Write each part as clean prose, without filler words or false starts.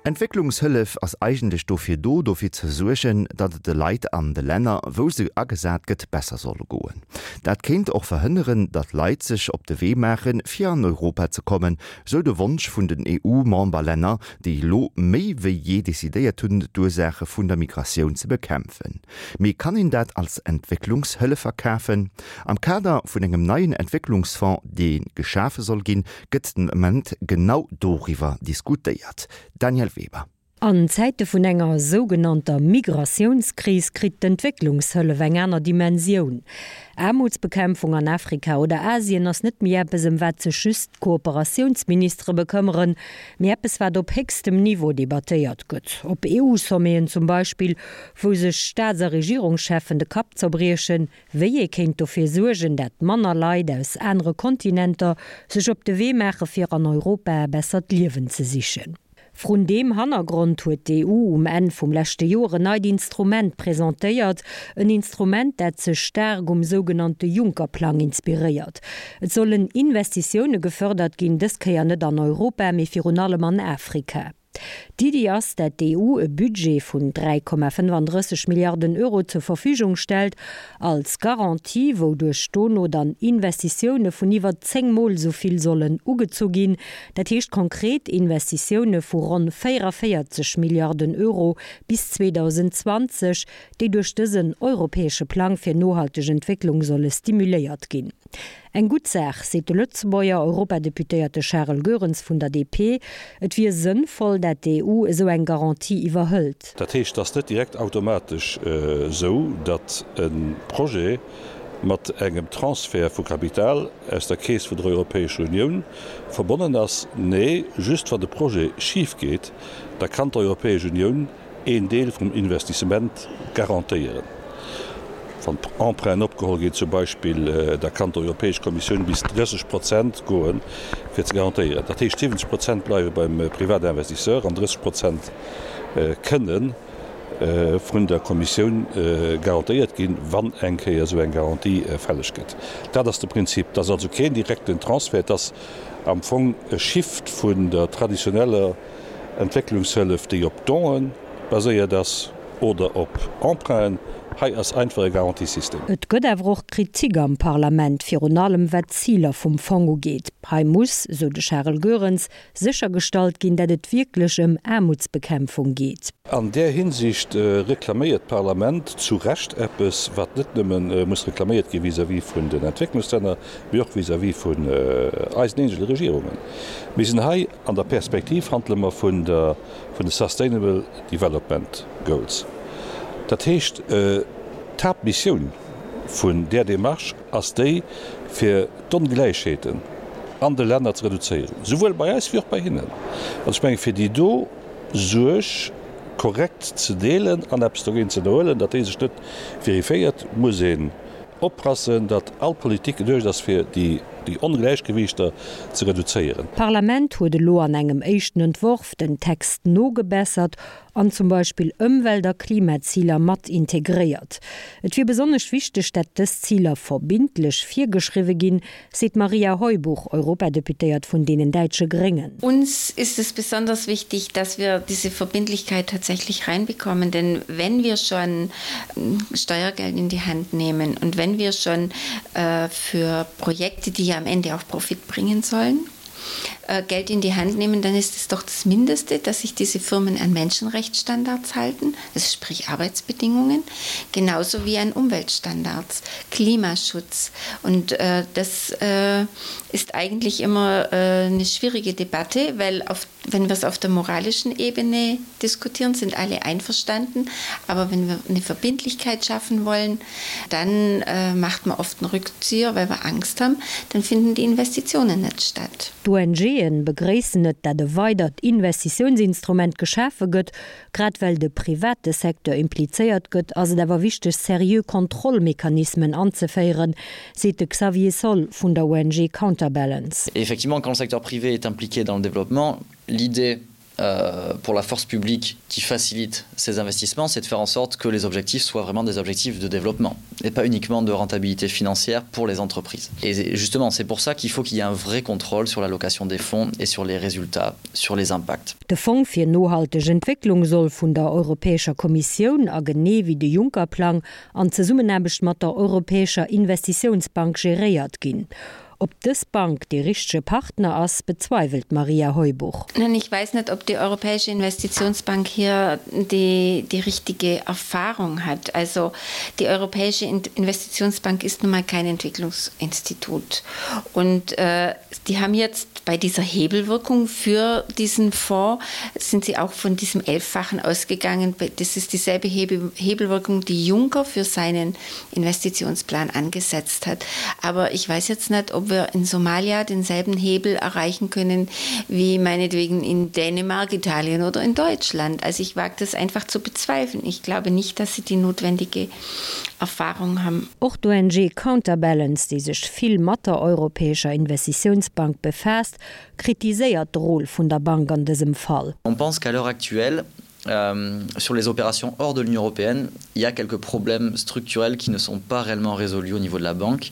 Entwécklungshëllef ass eigentlech dofir do, dofir ze suergen, datt et de Leit an de Länner, wou se agesat gëtt, besser soll goen. Dat kéint och verhënneren, datt Leit sech op de Wee maachen, fir an Europa ze kommen, sou de Wonsch vun den EU-Memberlänner, déi elo méi wéi jee decidéiert hunn, d'Ursaache vun der Migratioun ze bekämpfen. Mee kann een dat als Entwécklungshëllef verkafen? Am Kader vun engem neien Entwécklungsfonds, dee geschafe soll ginn, gëtt den Ament genau doriwwer diskutéiert. Danièle Weber. An Zäite vun enger sougenannter Migratiounskris kritt d'Entwécklungshëllef eng aner Dimensioun. Aarmutsbekämpfung an Afrika oder Asien ass net méi eppes, ëm wat sech just d'Kooperatiounsministere bekëmmeren, mee eppes, wat op héchstem Niveau debattéiert gëtt, op EU-Sommeten zum Beispill, wou sech Staats a Regierungscheffen de Kapp zerbriechen, wéi ee kéint dofir suergen, dat manner Leit aus anere Kontinenter sech op de Wee maache fir an Europa e bessert Liewen ze sichen. Vrun deem Hannergrond huet d'EU um Enn vum leschte Joer en neit Instrument presentéiert, en Instrument, dat sech staark um sougenannte Juncker-Plang inspiréiert. Et sollen Investitioune gefërdert ginn, dës Kéier net an Europa, mee virun allem an Afrika. D'Iddi ass, dat d'EU e Budget vun 3,35 Milliarden Euro zur Verfügung stellt, als Garantie, wouduerch dono dann Investitioune vun iwwer 10 Mol esou vill sollen ugezu ginn. Dat heescht konkret Investitioune vu ronn 44 Milliarden Euro bis 2020, déi duerch dësen europäesche Plang fir nohalteg Entwécklung solle stimuléiert ginn. Eng gutt Saach, seet de Lëtzebuerger Europadeputéierte Charel Goerens vun der DP. Et wier sënnvoll, dat d'EU esou eng Garantie iwwerhëlt. Dat heescht, et ass net direkt automatesch esou, datt e Projet mat engem Transfert vu Kapital aus der Keess vun der Europäescher Unioun verbonnen ass. Nee, just wann de Projet schif geet, da kann d'Europäesch Unioun een Deel vum Investissement garantéieren. Wann Emprunten opgeholl ginn zum Beispill, da kann d'Europäesch Kommissioun bis 30 Prozent goen, fir ze garantéieren. Dat heescht, 70 Prozent bleiwe beim Privatinvestisseur an 30 Prozent kënne vun der Kommissioun garantéiert ginn, wann eng Kéier esou eng Garantie fälleg gëtt. Dat ass de Prinzip. Et ass also keen direkten Transfert, et ass am Fong e Shift vun der traditioneller Entwécklungshëllef, déi op Donen baséiert ass oder op Emprunten. Hei ass einfach e Garantiesystem. Et gëtt awer och Kritik am Parlament, virun allem wat d'Ziler vum Fong ugeet. Hei muss, sou de Charel Goerens, séchergestallt ginn, dat et wierklech ëm Aarmutsbekämpfung geet. An där Hinsicht reklaméiert d'Parlament zu Recht eppes, wat net nëmme muss reklaméiert gi vis-à-vis vun den Entwécklungslänner, mee och vis-à-vis vun eisen eegene Regierungen. Mir sinn hei An der Perspektiv handele mer vun der, vun de Sustainable Development Goals. Dat heescht, d'Haaptmissioun vun där Démarche ass déi, fir d'Ongläichheeten an de Länner ze reduzéieren, souwuel bei eis wéi och bei hinnen. An ech mengen, fir déi do Suerg korrekt ze deelen an eppes dogéint ze ënnerhuelen, datt déi sech net verifiéiert, muss een Oppassen, datt all Politik geduecht ass fir déi Ongläichgewiichter ze reduzéieren. D'Parlament huet elo an engem éischten Entworf den Text nogebessert an zum Beispill Ëmwelt a Klimaziler mat integréiert. Et wier besonnesch wichteg, dat dës Ziler verbindlech virgeschriwwe ginn, seet d'Maria Heubuch, Europadeputéiert vun deenen däitsche Gréngen. Uns ist es besonders wichtig, dass wir diese Verbindlichkeit tatsächlich reinbekommen, denn wenn wir schon Steuergeld in die Hand nehmen und wenn wir schon äh, für Projekte, die ja am Ende auch Profit bringen sollen, äh, Geld in die Hand nehmen, dann ist es doch das Mindeste, dass sich diese Firmen an Menschenrechtsstandards halten, also sprich Arbeitsbedingungen, genauso wie an Umweltstandards, Klimaschutz. Und äh, das äh, ist eigentlich immer äh, eine schwierige Debatte, weil auf, wenn wir es auf der moralischen Ebene diskutieren, sind alle einverstanden. Aber wenn wir eine Verbindlichkeit schaffen wollen, dann äh, macht man oft einen Rückzieher, weil wir Angst haben, dann finden die Investitionen nicht statt. D'ONGen begréissen et, dat e weidert Investitiounsinstrument geschafe gëtt. Grad well de private Secteur implizéiert gëtt, ass et awer wichteg, seriö Kontrollmechanismen anzeféieren, seet de Xavier Saul vun der ONG Counterbalance. Effectivement, quand le secteur privé est impliqué dans le développement, l'idée. euh, pour la force publique qui facilite ces investissements, c'est de faire en sorte que les objectifs soient vraiment des objectifs de développement et pas uniquement de rentabilité financière pour les entreprises. Et justement, c'est pour ça qu'il faut qu'il y ait un vrai contrôle sur l'allocation des fonds et sur les résultats, sur les impacts. De Fong fir nohalteg Entwécklung soll vun der Europäescher Kommissioun a genee wéi de Juncker-Plang an Zesummenaarbecht mat der Europäescher Investitiounsbank geréiert ginn. Ob dës Bank dee richtege Partner ass, bezweiwelt d'Maria Heubuch. Nein, ich weiß nicht, ob die Europäische Investitionsbank hier die, die richtige Erfahrung hat. Also die Europäische Investitionsbank ist nun mal kein Entwicklungsinstitut. Und äh, die haben jetzt bei dieser Hebelwirkung für diesen Fonds sind sie auch von diesem Elffachen ausgegangen. Das ist dieselbe Hebel Hebelwirkung, die Juncker für seinen Investitionsplan angesetzt hat. Aber ich weiß jetzt nicht, ob wir in Somalia denselben Hebel erreichen können wie meinetwegen in Dänemark, Italien oder in Deutschland. Also ich wage das einfach zu bezweifeln. Ich glaube nicht, dass sie die notwendige Erfahrung haben. Och d'ONG Counterbalance, déi sech vill mat der Europäescher Investitiounsbank befaasst, kritiséiert de Rôle vun der Bank an dësem Fall. On pense qu'à l'heure actuelle, euh, sur les opérations hors de l'Union européenne, il y a quelques problèmes structurels qui ne sont pas réellement résolus au niveau de la banque,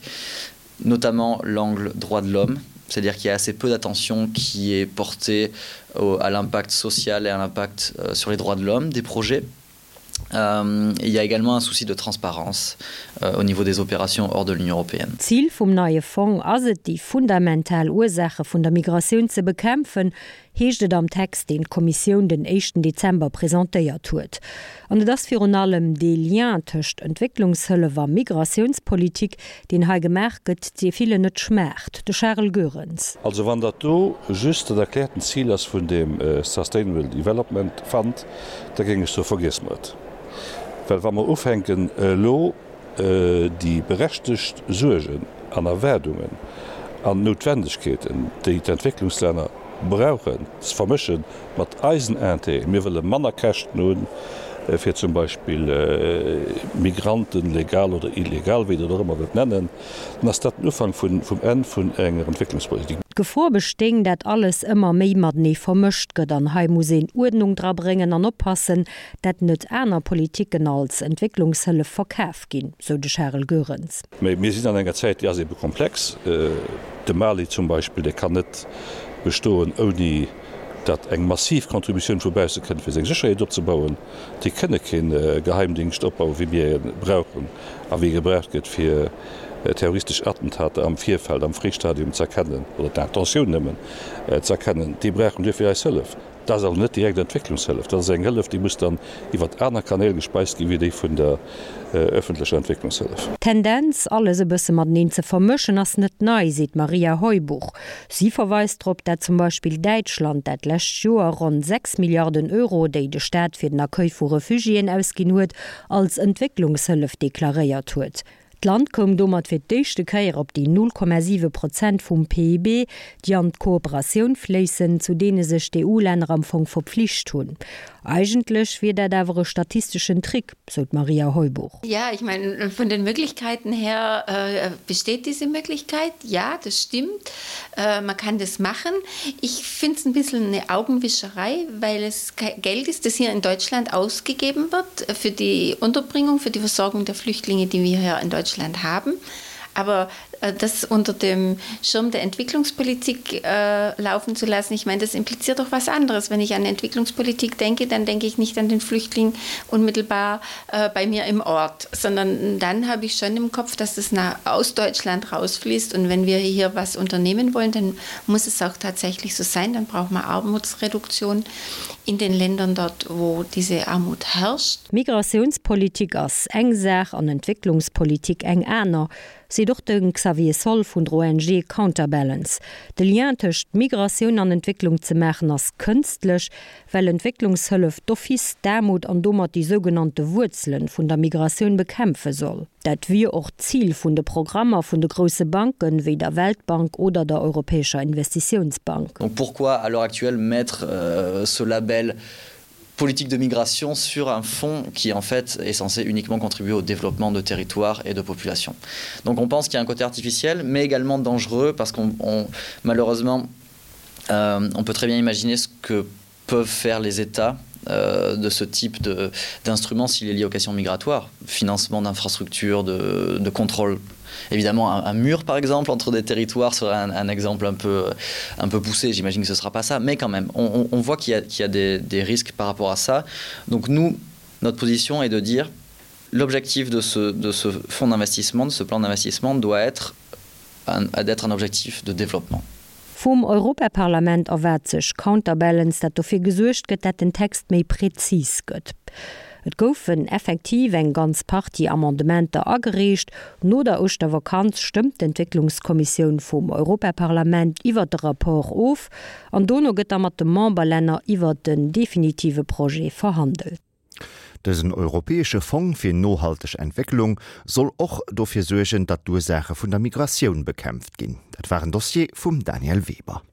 notamment l'angle droit de l'homme, c'est-à-dire qu'il y a assez peu d'attention qui est portée au, à l'impact social et à l'impact euh, sur les droits de l'homme des projets. Euh, il y a également un souci de transparence euh, au niveau des opérations hors de l'Union européenne. D'Zil vum neie Fong ass et, déi fundamental Ursaache vun der Migratioun ze bekämpfen, heescht et am Text, deen d'Kommissioun den éischten Dezember presentéiert huet. An et ass virun allem dee Lien tëscht Entwécklungshëllef a Migratiounspolitik, deen hei gemaach gëtt, dee villen net schmaacht. De Charel Goerens. Also wann dat do just dat erkläerten Zil ass vun deem Sustainable Development Fund, da géing ech soe vergiesse mer et. Well wa mer ufänken elo déi berechtegt Suergen an Erwaardungen an Noutwendegkeeten, déi d'Entwécklungslänner brauchen, ze vermësche mat eisen Intérêten, mir wëlle manner Käschten hunn, fir zum Beispill Migranten, legal oder illegal, wéi Der et och ëmmer wëllt nennen, dann ass dat den Ufank vum Enn vun enger Entwécklungspolitik. D'Gefor bestéing, dat alles ëmmer méi matenee vermëscht gëtt an hei muss een Uerdnung dra bréngen an oppassen, dat net aner Politiken als Entwécklungshëllef verkaf ginn, sou de Charel Goerens. Mä mir sinn an enger Zäit, déi ass ebe komplex. De Mali zum Beispill, dee kann net bestoen, ouni datt eng massiv Contributioun vu bausse kënnt, fir seng Sécherheet opzebauen. Déi kënne kee Geheimdingscht opbauen, wéi mir e brauchen a wéi e gebraucht gëtt, fir terroristesch Attentater am Virfeld, am Fréistadium ze erkennen oder d'Intentioun nëmmen ze erkennen. Déi brauchen duerfir eis Hëllef. Dat ass also net direkt Entwécklungshëllef, dat ass eng Hëllef, déi muss dann iwwert aner Kanäl gespeist ginn, wéi déi vun der öffentlecher Entwécklungshëllef. D'Tendenz, alles e bësse mateneen ze vermëschen, ass net nei, seet d'Maria Heubuch. Si verweist drop, dat zum Beispill Däitschland dat lescht Joer ronn 6 Milliarden Euro, déi de Staat fir den Accueil vu Refugiéen ausginn huet, als Entwécklungshëllef deklaréiert huet. D'Land koum domat fir d'éischte Kéier op déi 0,7 Prozent vum PIB, déi an d'Kooperatioun fléissen, zu deene sech d'EU-Länner am Fong verpflicht hunn. Eigentlech wier dat awer e statisteschen Trick, sou d'Maria Heubuch. Ja, ich meine, von den Möglichkeiten her äh, besteht diese Möglichkeit. Ja, das stimmt. Äh, man kann das machen. Ich finde es ein bisschen eine Augenwischerei, weil es Geld ist, das hier in Deutschland ausgegeben wird für die Unterbringung, für die Versorgung der Flüchtlinge, die wir hier in Deutschland haben. Aber äh, das unter dem Schirm der Entwicklungspolitik äh, laufen zu lassen, ich meine, das impliziert doch was anderes. Wenn ich an Entwicklungspolitik denke, dann denke ich nicht an den Flüchtling unmittelbar äh, bei mir im Ort, sondern dann habe ich schon im Kopf, dass das nach, aus Deutschland rausfließt. Und wenn wir hier was unternehmen wollen, dann muss es auch tatsächlich so sein. Dann braucht man Armutsreduktion in den Ländern dort, wo diese Armut herrscht. Migratiounspolitik ass eng Saach an Entwécklungspolitik eng aner, seet och de Xavier Soll vun der ONG Counterbalance. De Lien tëscht Migratioun an Entwécklung ze maachen ass kënstlech, well Entwécklungshëllef d'office d'Aarmut an domat déi sougenannte Wuerzelen vun der Migratioun bekämpfe soll. Dat wier och d'Zil vun de Programmer vun de grousse Banken, wéi der Weltbank oder der Europäescher Investitiounsbank. Donc pourquoi à l'heure actuelle mettre ce label politique de migration sur un fonds qui en fait est censé uniquement contribuer au développement de territoires et de populations. Donc on pense qu'il y a un côté artificiel mais également dangereux parce qu'on malheureusement euh, on peut très bien imaginer ce que. peuvent faire les États euh, de ce type d'instrument s'il est lié aux questions migratoires, financement d'infrastructures, de, de contrôle. Évidemment, un, un mur par exemple entre des territoires serait un, un exemple un peu, un peu poussé, j'imagine que ce ne sera pas ça, mais quand même, on, on, on voit qu'il y a, qu y a des, des risques par rapport à ça. Donc nous, notre position est de dire l'objectif de ce, de ce fonds d'investissement, de ce plan d'investissement doit être d'être un objectif de développement. Vum Europaparlament erwaart sech Counterbalance, dat dofir gesuergt gëtt, dat den Text méi prezis gëtt. Et goufen effektiv eng ganz Partie Amendementer agereecht. No der Ouschtervakanz stëmmt d'Entwécklungskommissioun vum Europaparlament iwwert de Rapport of an dono gëtt da mat de Memberlänner iwwert den definitive Projet verhandelt. Dësen europäesche Fong fir nohalteg Entwécklung soll och dofir suergen, datt d'Ursaache vun der Migratioun bekämpft ginn. Dat war en Dossier vum Daniel Weber.